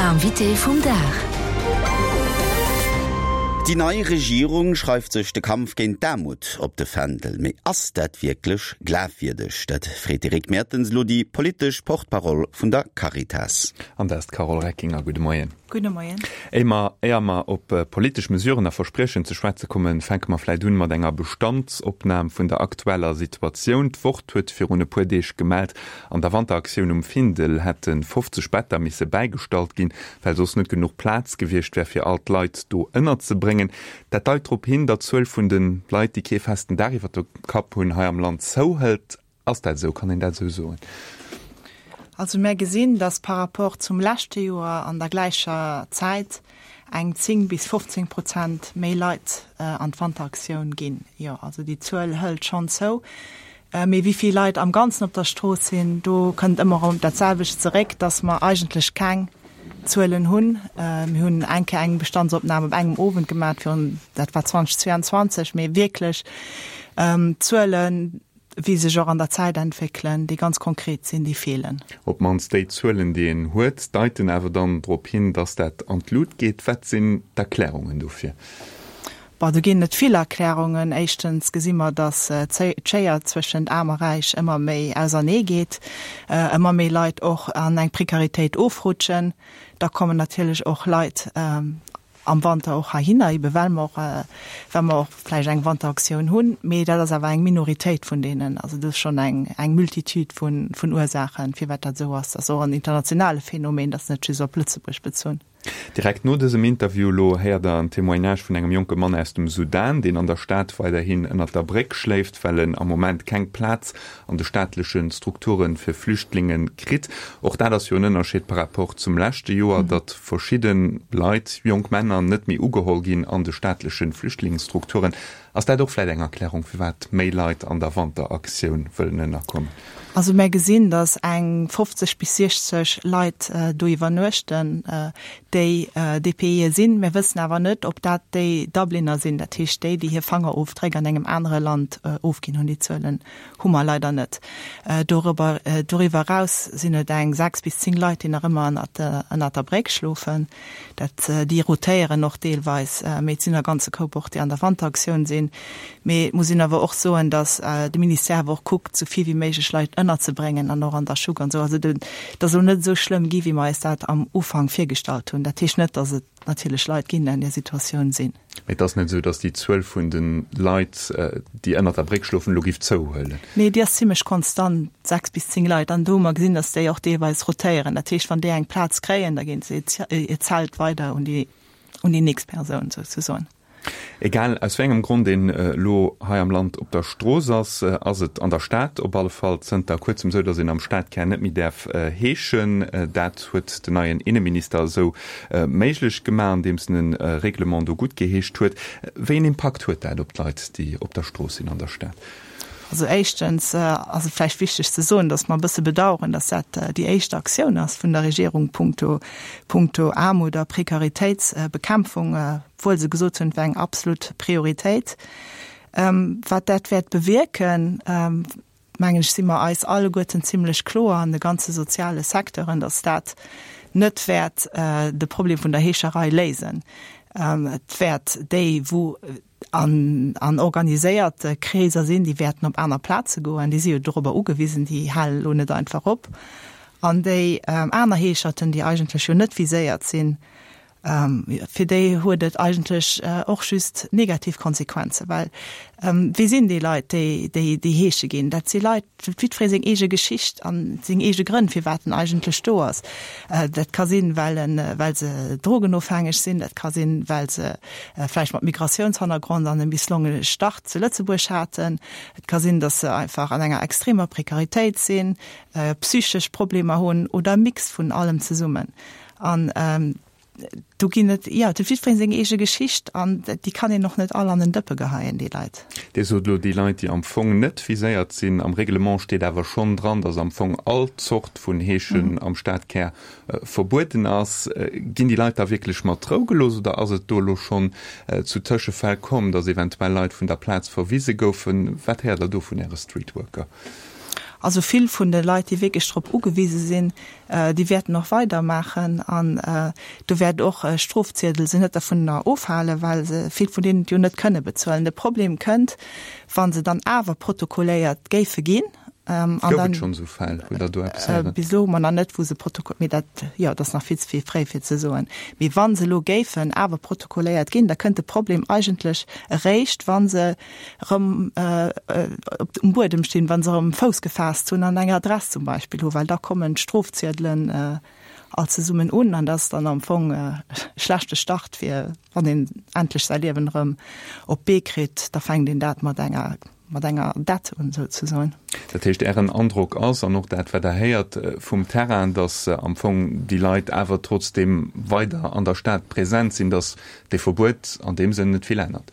Invité vum Dag. Déi nei Regierung schreift sech de Kampf géint d'Aarmut op de Fändel. Mee ass dat wierklech glafwierdeg? Dat freet de Rick Mertens elo déi politesch Porte-parole vun der Caritas. An dat ass d'Carole Reckinger. Gudde Moien. Gudde Moien. Éier mer, éier mer op politesch Mesuren a Verspriechen ze schwätze kommen, fänke mer vläit un mat enger Bestandsopnam vun der aktueller Situatioun. D'Wort huet virun e puer Deeg gemellt, An der Wanteraktioun um Findel hätte 50 Better misse bäigestallt ginn, well soss net genuch Plaz gewiescht wär, fir all d'Leit do ënnerzebréngen. Dat deit drop hin, datt d'Zuel vun de Leit, déi kee festen Daach iwwer dem Kapp hunn, hei am Land zouhëlt. Ass dat esou? Kann een dat esou soen? Also mär gesinn, datt par rapport zum leschte Joer an der gläicher Zäit eng 10 bis 15 Prozent méi Leit an d'Wanteraktioun ginn. Jo, also déi Zuel hëlt schonn zou. Mee wéi vill Leit am Ganzen op der Strooss sinn, do kënnt ëmmer erëm dat selwecht zeréck, dass mer eigentlech keng Zuelen hunn. Mir hunn eng Kéier eng Bestandsopnam op engem Owend gemaach virun, dat war 2022, mee wierklech Zuelen, wéi sech och an der Zäit entwéckelen, déi ganz konkret sinn, déi feelen. Op d'mannst déi Zuelen, déi een huet, deiten awer dann drop hin, dass dat an d'Lut geet. Wat sinn d'Erklärungen dofir? Bon, do ginn et vill Erklärungen. Éischtens gesi mer, datt d'Schéier zwëschent Aarm a Räich ëmmer méi ausernee geet, ëmmer méi Leit och an eng Prekaritéit ofrutschen. Da kommen natierlech och Leit am Wanter och heihinner, ebe well mer och, well mer och vläicht eng Wanteraktioun hunn. Mee dat ass awer eng Minoritéit vun deenen. Also do ass schonn eng, eng Multitude vun, vun Ursaachen, firwat dat esou ass. Dat ass och en internationale Phänomen, dat ass net just op Lëtzebuerg bezunn. Direkt no dësem Interview elo héiert der en Témoignage vun engem jonke Mann aus dem Sudan, deen an der Stad weiderhin ënnert der Bréck schléift, well en am Moment keng Plaz an de staatleche Strukture fir Flüchtlinge kritt. Och dat ass jo en Ënnerscheed par rapport zum leschte Joer, datt verschidde Leit, jonk Männer, net méi ugeholl ginn an de staatleche Flüchtlingsstrukturen. Ass dat och vläit eng Erklärung, firwat méi Leit an der Wanteraktioun wëllen ënnerkommen? Also mär gesinn, datt eng 50 bis 60 Leit do iwwernuechten, déi DPIe sinn. Mär wëssen awer net, ob dat déi Dubliner sinn, dat heescht déi, déi hir Fangerofdréck an engem anere Land ofginn hunn. Déi Zuelen hu mer leider net. Doriwwer eraus sinn et eng 6 bis 10 Leit, déi nach ëmmer ënnert der Bréck schlofen. Dat, déi rotéieren och deelweis, mee et sinn e ganze Koup och, déi an der Wanteraktioun sinn. Mee et muss een awer och soen, datt de Ministère awer och kuckt, esou vill wéi méiglech Leit ënnerzebréngen an och an der Schuck an esou. Also et ass elo net esou schlëmm gi wéi mer eis dat am Ufank virgestallt hunn. Dat heescht net, datt et natierlech Leit ginn, déi an där Situatioun sinn. Mee et ass net esou, datt déi Zuel vun de Leit, déi ënnert der Bréck schlofen, elo giff zouhuelen? Nee, déi ass zimlech konstant, 6 bis 10 Leit. An do hu mer gesinn, datt déi och deelweis rotéieren. Dat heescht, wann déi eng Plaz kréien, da ginn se hiert Zelt weider un déi, un déi nächst Persoun souzesoen. Egal aus wéi engem Grond een elo hei am Land op der Strooss ass, ass et an der Stad op alle Fall zënter kuerzem esou, datt een am Stadkär net méi däerf heeschen. Dat huet den neien Inneminister esou méiglech gemaach, andeems en e Reglement do guttgeheescht huet. Wéi een Impakt huet dat op d'Leit, déi op der Strooss sinn an der Stad? Also éischtens ass et vläicht wichteg ze soen, datt mer e bësse bedauern, datt dat déi éischt Aktioun ass vun der Regierung punkto, punkto Aarmut a Prekaritéitsbekämpfung, obwuel se gesot hunn, et wär eng absolut Prioritéit. Wat dat wäert bewierken, mengen ech, si mer eis alleguerten zimlech kloer an de ganze soziale Secteuren, datt dat net wäert de Problem vun der Heescherei léisen. Et wäert déi, wou an organiséierte Kreeser sinn, déi wäerten op aner Plaze goen, déi si jo dorobber ugewisen, déi halen elo net einfach op. An déi aner Heescherten, déi eigentlech jo net viséiert sinn, Fir déi huet et eigentlech och just negativ Konsequenzen, well wie sinn déi Leit, déi déi heesche ginn? Dat si Leit, huet jiddweree seng eege Geschicht a seng eege Grënn, firwat en eigentlech do ass. Dat ka sinn, well en, well se drogenofhängeg sinn, dat ka sinn, well se vläicht mat Migratiounshannergrond an e misslongene Start zu Lëtzebuerg haten. Et ka sinn, datt se einfach an enger extremer Prekaritéit sinn, psychesch Problemer hunn oder e Mix vun allem zesummen. An do ginn et, jo, et huet jiddweree seng eege Geschicht an déi kann een och net all an en Dëppe geheien, déi Leit. Dir sot elo, déi Leit, déi am Fong net viséiert sinn. Am Reglement steet awer schonn dran, datt am Fong all Zort vun Heeschen am Stadkär verbueden ass. Ginn déi Leit da wierklech mat Rou gelooss oder ass et do elo schonn zu Tëschefäll komm, datt eventuell Leit vun der Plaz verwise goufen? Wat héiert Der do vun Äre Streetworker? Also vill vun de Leit, déi wierklech drop ugewise sinn, déi wäerten och weidermaachen an do wäert och e Strofziedel se net dervunner ofhalen, well se vill vun deenen et jo net kënne bezuelen. De Problem kënnt, wa se dann awer protokolléiert géife ginn. Gouf et schonn esou Fäll? Hutt Der do eppes héieren? Bis elo hu mer nach net, wou se protoko-, mee dat, jo, dat ass nach vill ze vill fréi fir ze soen. Mee wa se elo géifen awer protokolléiert ginn, da kënnt de Problem eigentlech eréischt, wa se erëm op um Buedem stinn, wa se erëm Fouss gefaasst hunn an eng Adress zum Beispill hu, well da kommen d'Strofziedelen all zesummen un an dat ass dann am Fong e schlechte Start fir wann een endlech säi Liewen erëm op d'Bee kritt, da fänkt een dat mat enger mat enger Dett un souzesoen. Dat heescht, Ären Androck ass, an och dat wat Der héiert vum Terrain, datt am Fong déi Leit awer trotzdeem weider an der Stad present sinn, datt dee Verbuet an deem Sënn net vill ännert?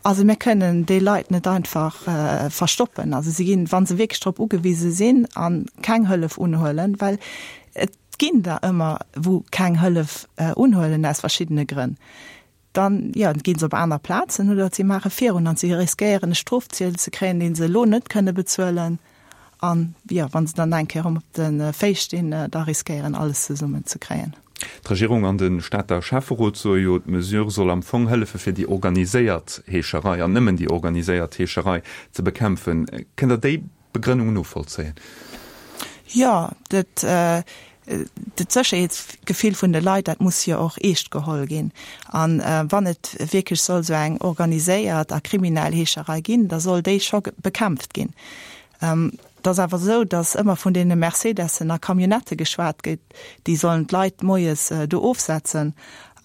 Also mir kënnen déi Leit net einfach verstoppen. Also si ginn, wa se wierklech drop ugewise sinn a keng Hëllef unhuelen, well et ginn der ëmmer wou keng Hëllef unhuelen aus verschiddene Grënn, dann, jo, ginn se op aner Plazen oder si maache virun an si riskéieren e Strofziel ze kréien, dee se elo net kënne bezuelen. An, jo, wa se dann eng Kéier erëm op de Féiss stinn, da riskéieren alles zesummen ze kréien. D'Regierung an de Stater Schäfferot soe jo, d'Mesure soll am Fong hëllefe fir déi organiséiert Heescherei, an nëmmen déi organiséiert Heescherei, ze bekämpfen. Kënnt Der déi Begrënnung novollzéien? Jo, dat Sécherheetsgefill vun de Leit, dat muss jo och eescht geholl ginn. A wann et wierklech soll esou eng organiséiert a kriminell Heescherei ginn, da soll déi scho bekämpft ginn. Et ass awer esou, datt ëmmer vun deene Mercedessen a Camionnettë geschwat gëtt, déi sollen d'Leit moies do ofsetzen.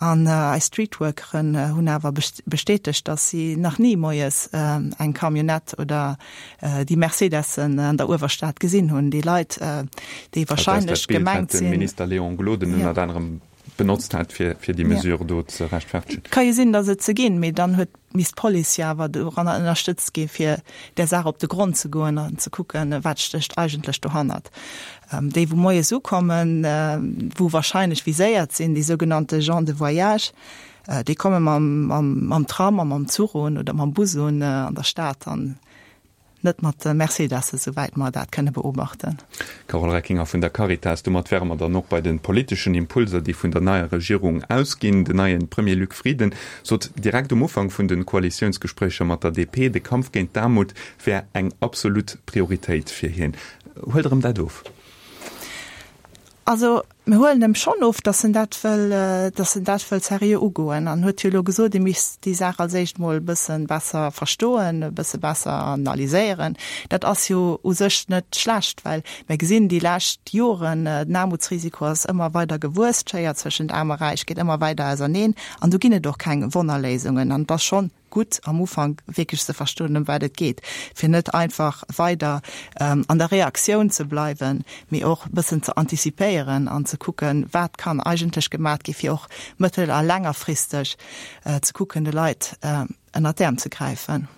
An eis Streetworkeren hunn awer bestätegt, datt si nach ni moies eng Camionnette oder déi Mercedessen an der Uewerstad gesinn hunn. Déi Leit, déi wahrscheinlech gemengt sinn. Dat ass dat Bild, wat de Minister Léon Gloden ënnert anerem benotzt hat, fir déi Mesure do ze rechtfertegen. Ka jo sinn, datt et se ginn, mee dann huet misst d'Police jo awer doranner ënnerstëtzt gi fir där Saach op de Grond ze goen an ze kucken, wat stécht eigentlech dohannert. Déi wou moies ukommen, wou wahrscheinlech viséiert sinn, déi sougenannte gens de voyage, déi komme mam Tram a mam Zuch un oder mam Bus un an der Stad an Net mat de Mercedesse, souwäit mer dat kënne beobachten. Carole Reckinger vun der Caritas, Domat wäre mer dann och bei de politeschen Impulser, déi vun der neier Regierung ausginn. Den neie Premier Luc Frieden sot direkt um Ufank vun de Koalitiounsgespréicher mat der DP, de Kampf géint d'Aarmut wär eng absolut Prioritéit fir hien. Huelt Der em dat of? Also, mir huelen em schonn of, datt en dat wëll, datt en dat wëll seriö ugoen. An huet jo elo gesot, e misst déi Saach als éischt mol e bësse besser verstoen, e bësse besser analyséieren. Dat ass jo u sech net schlecht, well mir gesinn déi lescht Joren, den Aarmutsrisiko ass ëmmer weider gewuess, d'Schéier zwëschent Aarm a Räich geet ëmmer weider auserneen an do ginn et och keng Wonnerléisungen. An et ass schonn gutt am Ufank wierklech ze verstoen, ëm wat et geet, fir net einfach weider an der Reaktioun ze bleiwen, mee och e bëssen ze antizipéieren an ze kucken, wat kann eigentlech gemat gi fir och mëttel a längerfristeg ze kucken, de Leit ënnert d'Äerm ze gräifen.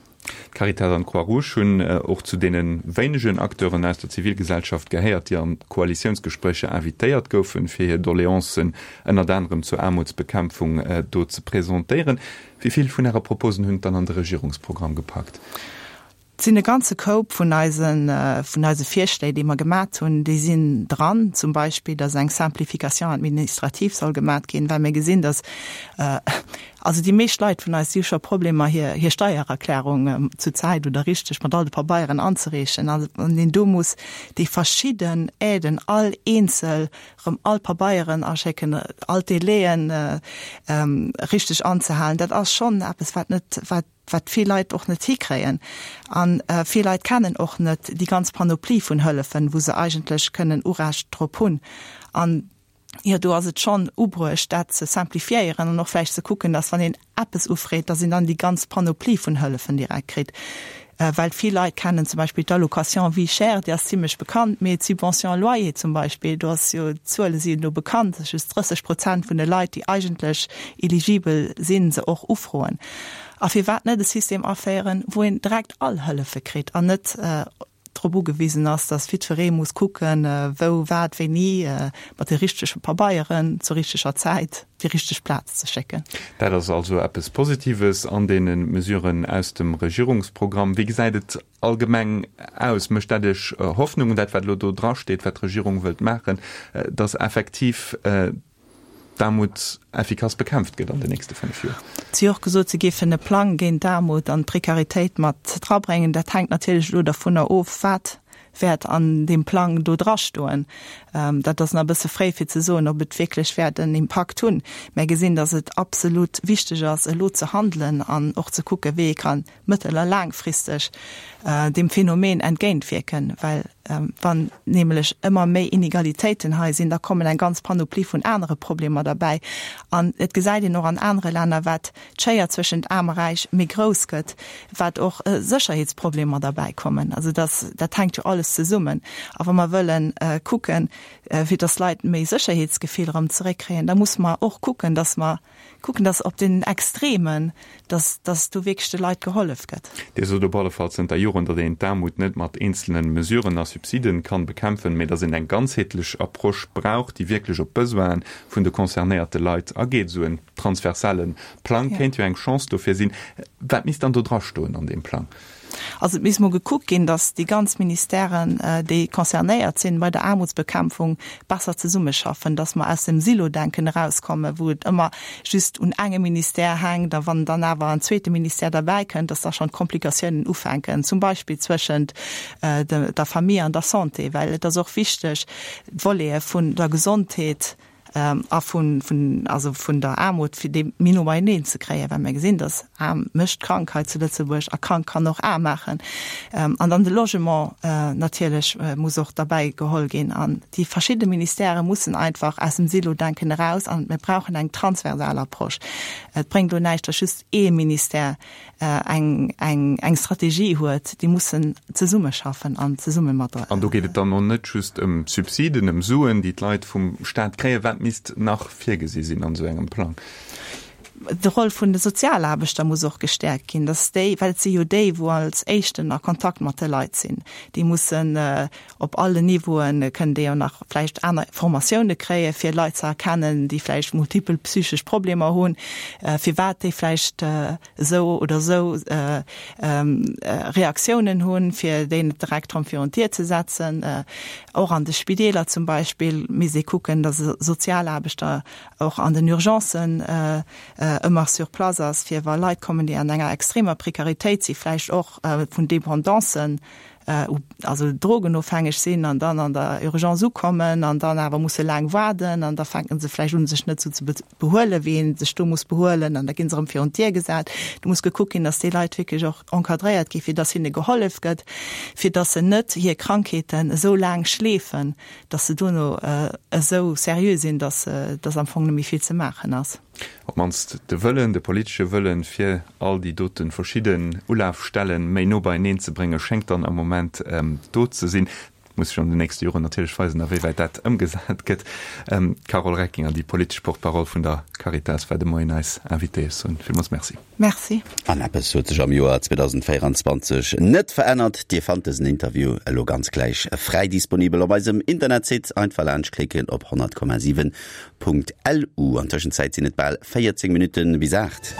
D'Caritas an d'Croix-Rouge hunn och zu deene wéinegen Acteuren aus der Zivilgesellschaft gehéiert, déi an d'Koalitiounsgespréicher invitéiert goufen, fir hir Doleancen ënnert anerem zur Aarmutsbekämpfung do ze presentéieren. Wéi vill vun Äre Proposen hunn et dann an de Regierungsprogramm gepackt? Et sinn e ganze Koup vun eisen, vun eise Virschléi, déi mer gemat hunn, déi sinn dran. Zum Beispill, dass eng Simplification administrative soll gemat ginn, well mir gesinn, dass, also déi meescht Leit vun eis, déi hu scho Problemer, hir, hir Steiererklärung zur Zäit oder richteg mat all de Pabeieren anzereechen. A wann een do muss déi verschidden Aiden all eenzel rëm all Pabeieren aschécken, all d'Délaiën richteg anzehalen, dat ass schonn eppes, wat net, wat, wat vill Leit och net hikréien. A vill Leit kennen och net déi ganz Panoplie vun Hëllefen, wou se eigentlech kënnen Urecht drop hunn. An, jo, do ass et schonn ubruecht, dat ze simplifiéieren an och vläicht ze kucken, dass, wann een eppes ufreet, dass een dann déi ganz Panoplie vun Hëllefen direkt kritt. Well vill Leit kennen zum Beispill d'Allocation vie chère, déi ass zimlech bekannt, mee d'Subvention loyer zum Beispill, do ass jo, d'Zuele si elo bekannt, dass just 30 Prozent vun de Leit, déi eigentlech eligibel sinn, se och ufroen. A firwat net e System aféieren, wou een direkt all Hëllefe kritt an net. drop ugewisen ass, dass jiddweree muss kucken, wou, wat, wéini, mat de richtege Pabeieren, zur richteger Zäit, déi richteg Plaz ze schécken. Dat ass also eppes Positives an deene Mesuren aus dem Regierungsprogramm. Wéi gesäit et allgemeng aus? Mécht dat Iech Hoffnung, dat wat elo do drasteet, wat d'Regierung wëllt maachen, dass effektiv d'Aarmut effikass bekämpft gëtt an den nächste 5 Joer? Si hu och gesot, si géifen e Plang géint d'Aarmut an d'Prekaritéit mat drabréngen. Dat hänkt natierlech elo dervunner of, wat wäert an deem Plang do drastoen. Dat ass nach e bësse fréi fir ze soen, ob et wierklech wäert en Impakt hunn. Mär gesinn, datt et absolut wichteg ass, elo ze handelen an och ze kucken, wéi ee ka mëttel a laangfristeg deem Phänomen entgéintwierken, well wann nämlech ëmmer méi Inegalitéiten hei sinn, da kommen eng ganz Panoplie vun anere Problemer derbäi. An et gesäit een och an anere Länner, wat d'Schéier zwëschent Aarm a Räich méi grouss gëtt, wat och Sécherheetsproblemer derbäi kommen. Also dass, dat hänkt jo alles zesummen. A wa mer wëllen kucken, fir dass d'Leit méi Sécherheetsgefill erëm zeréckkréien, da musse mer och kucken, dass mer kucken, dass op den Extremen, dass, dass do wierklech de Leit gehollef gëtt. Dir sot op alle Fall zënter Joren, datt een d'Aarmut net mat eenzelne Mesuren a Subsiden kann bekämpfen, mee datt een eng ganzheetlech Approche brauch, déi wierklech op d'Besoinen vun de concernéierte Leit ageet. Esou en transversale Plang kéint jo eng Chance dofir sinn. Wat misst dann do drastoen an deem Plang? Also et misst mol gekuckt ginn, datt déi ganz Ministèren, déi concernéiert sinn bei der Aarmutsbekämpfung, besser zesummeschaffen, datt mer aus dem Silo-Denken erauskommen, wou et ëmmer just un engem Ministère hänkt a wann dann awer en zweete Ministère derbäi kënnt, datt da schonn d'Komplikatiounen ufänken, zum Beispill zwëschent der Famille an der Santé, well et ass och wichteg, d'Volete vun der Gesondheet a vun, vun, also vun der Aarmut, fir déi méi no beieneen ze kréien, well mir gesinn, dass aarm mécht krank hei zu Lëtzebuerg a krank kann och aarm maachen. An dann de Logement natierlech muss och derbäi geholl ginn. An déi verschidde Ministèrë mussen einfach aus dem Silo-Denken eraus an mir brauchen eng transversal Approche. Et bréngt elo näischt, dass just ee Ministère eng, eng, eng Strategie huet, déi mussen zesummeschaffen an zesumme mat. An do geet et dann och net just ëm Subsiden, ëm Suen, déi d'Leit vum Staat kréien. Wat misst nach virgesi sinn an esou engem Plang? De Roll vun de Sozialaarbechter muss och gestäerkt ginn, dass déi, well et si jo déi, wou als éischten a Kontakt mat de Leit sinn, déi mussen op allen Niveauen, kënnen déi jo nach vläicht aner Formatioune kréien, fir Leit ze erkennen, déi vläicht multipel psychesch Problemer hunn, firwat déi vläicht esou oder esou Reaktiounen hunn, fir déi net direkt erëm virun d'Dier ze setzen. Och an de Spideeler zum Beispill misst ee kucken, datt e Sozialaarbechter och an den Urgencen ëmmer sur place ass, fir wa Leit kommen, déi an enger extremer Prekaritéit sinn, vläicht och vun Dependancen also drogenofhängeg sinn an dann an der Urgence ukommen an dann awer musse laang waarden an da fänken se vläicht un, sech net esou ze behuelen, wéi ee sech do muss behuelen an da gi se erëm virun d'Dier gesat. Do muss gekuckt ginn, datt déi Leit wierklech och encadréiert ginn, fir datt hinne gehollef gëtt, fir datt se net hir Krankheeten esou laang schleefen, datt se dono esou seriö sinn, datt datt am Fong net méi vill ze maachen ass. Op d'mannst de Wëllen, de politesche Wëllen, fir all déi dote verschidden Ulafstellen méi no beieneen ze bréngen, schéngt dann am Moment do ze sinn. Et muss sech an den nächste Joren natierlech weisen, awéiwäit dat ëmgesat gëtt. D'Carole Reckinger, déi politesch Porte-parole vun der Caritas, war de Moien eis Invitée. Ech soen villmools Merci. Merci. An eppes huet sech am Joer 2024 net verännert, Dir fannt dësen Interview elo ganz gläich fräi disponibel op eisem Internetsite. Einfach laanscht klicken op 100,7.lu. An Tëschenzäit sinn et bal 14 Minutte bis 8.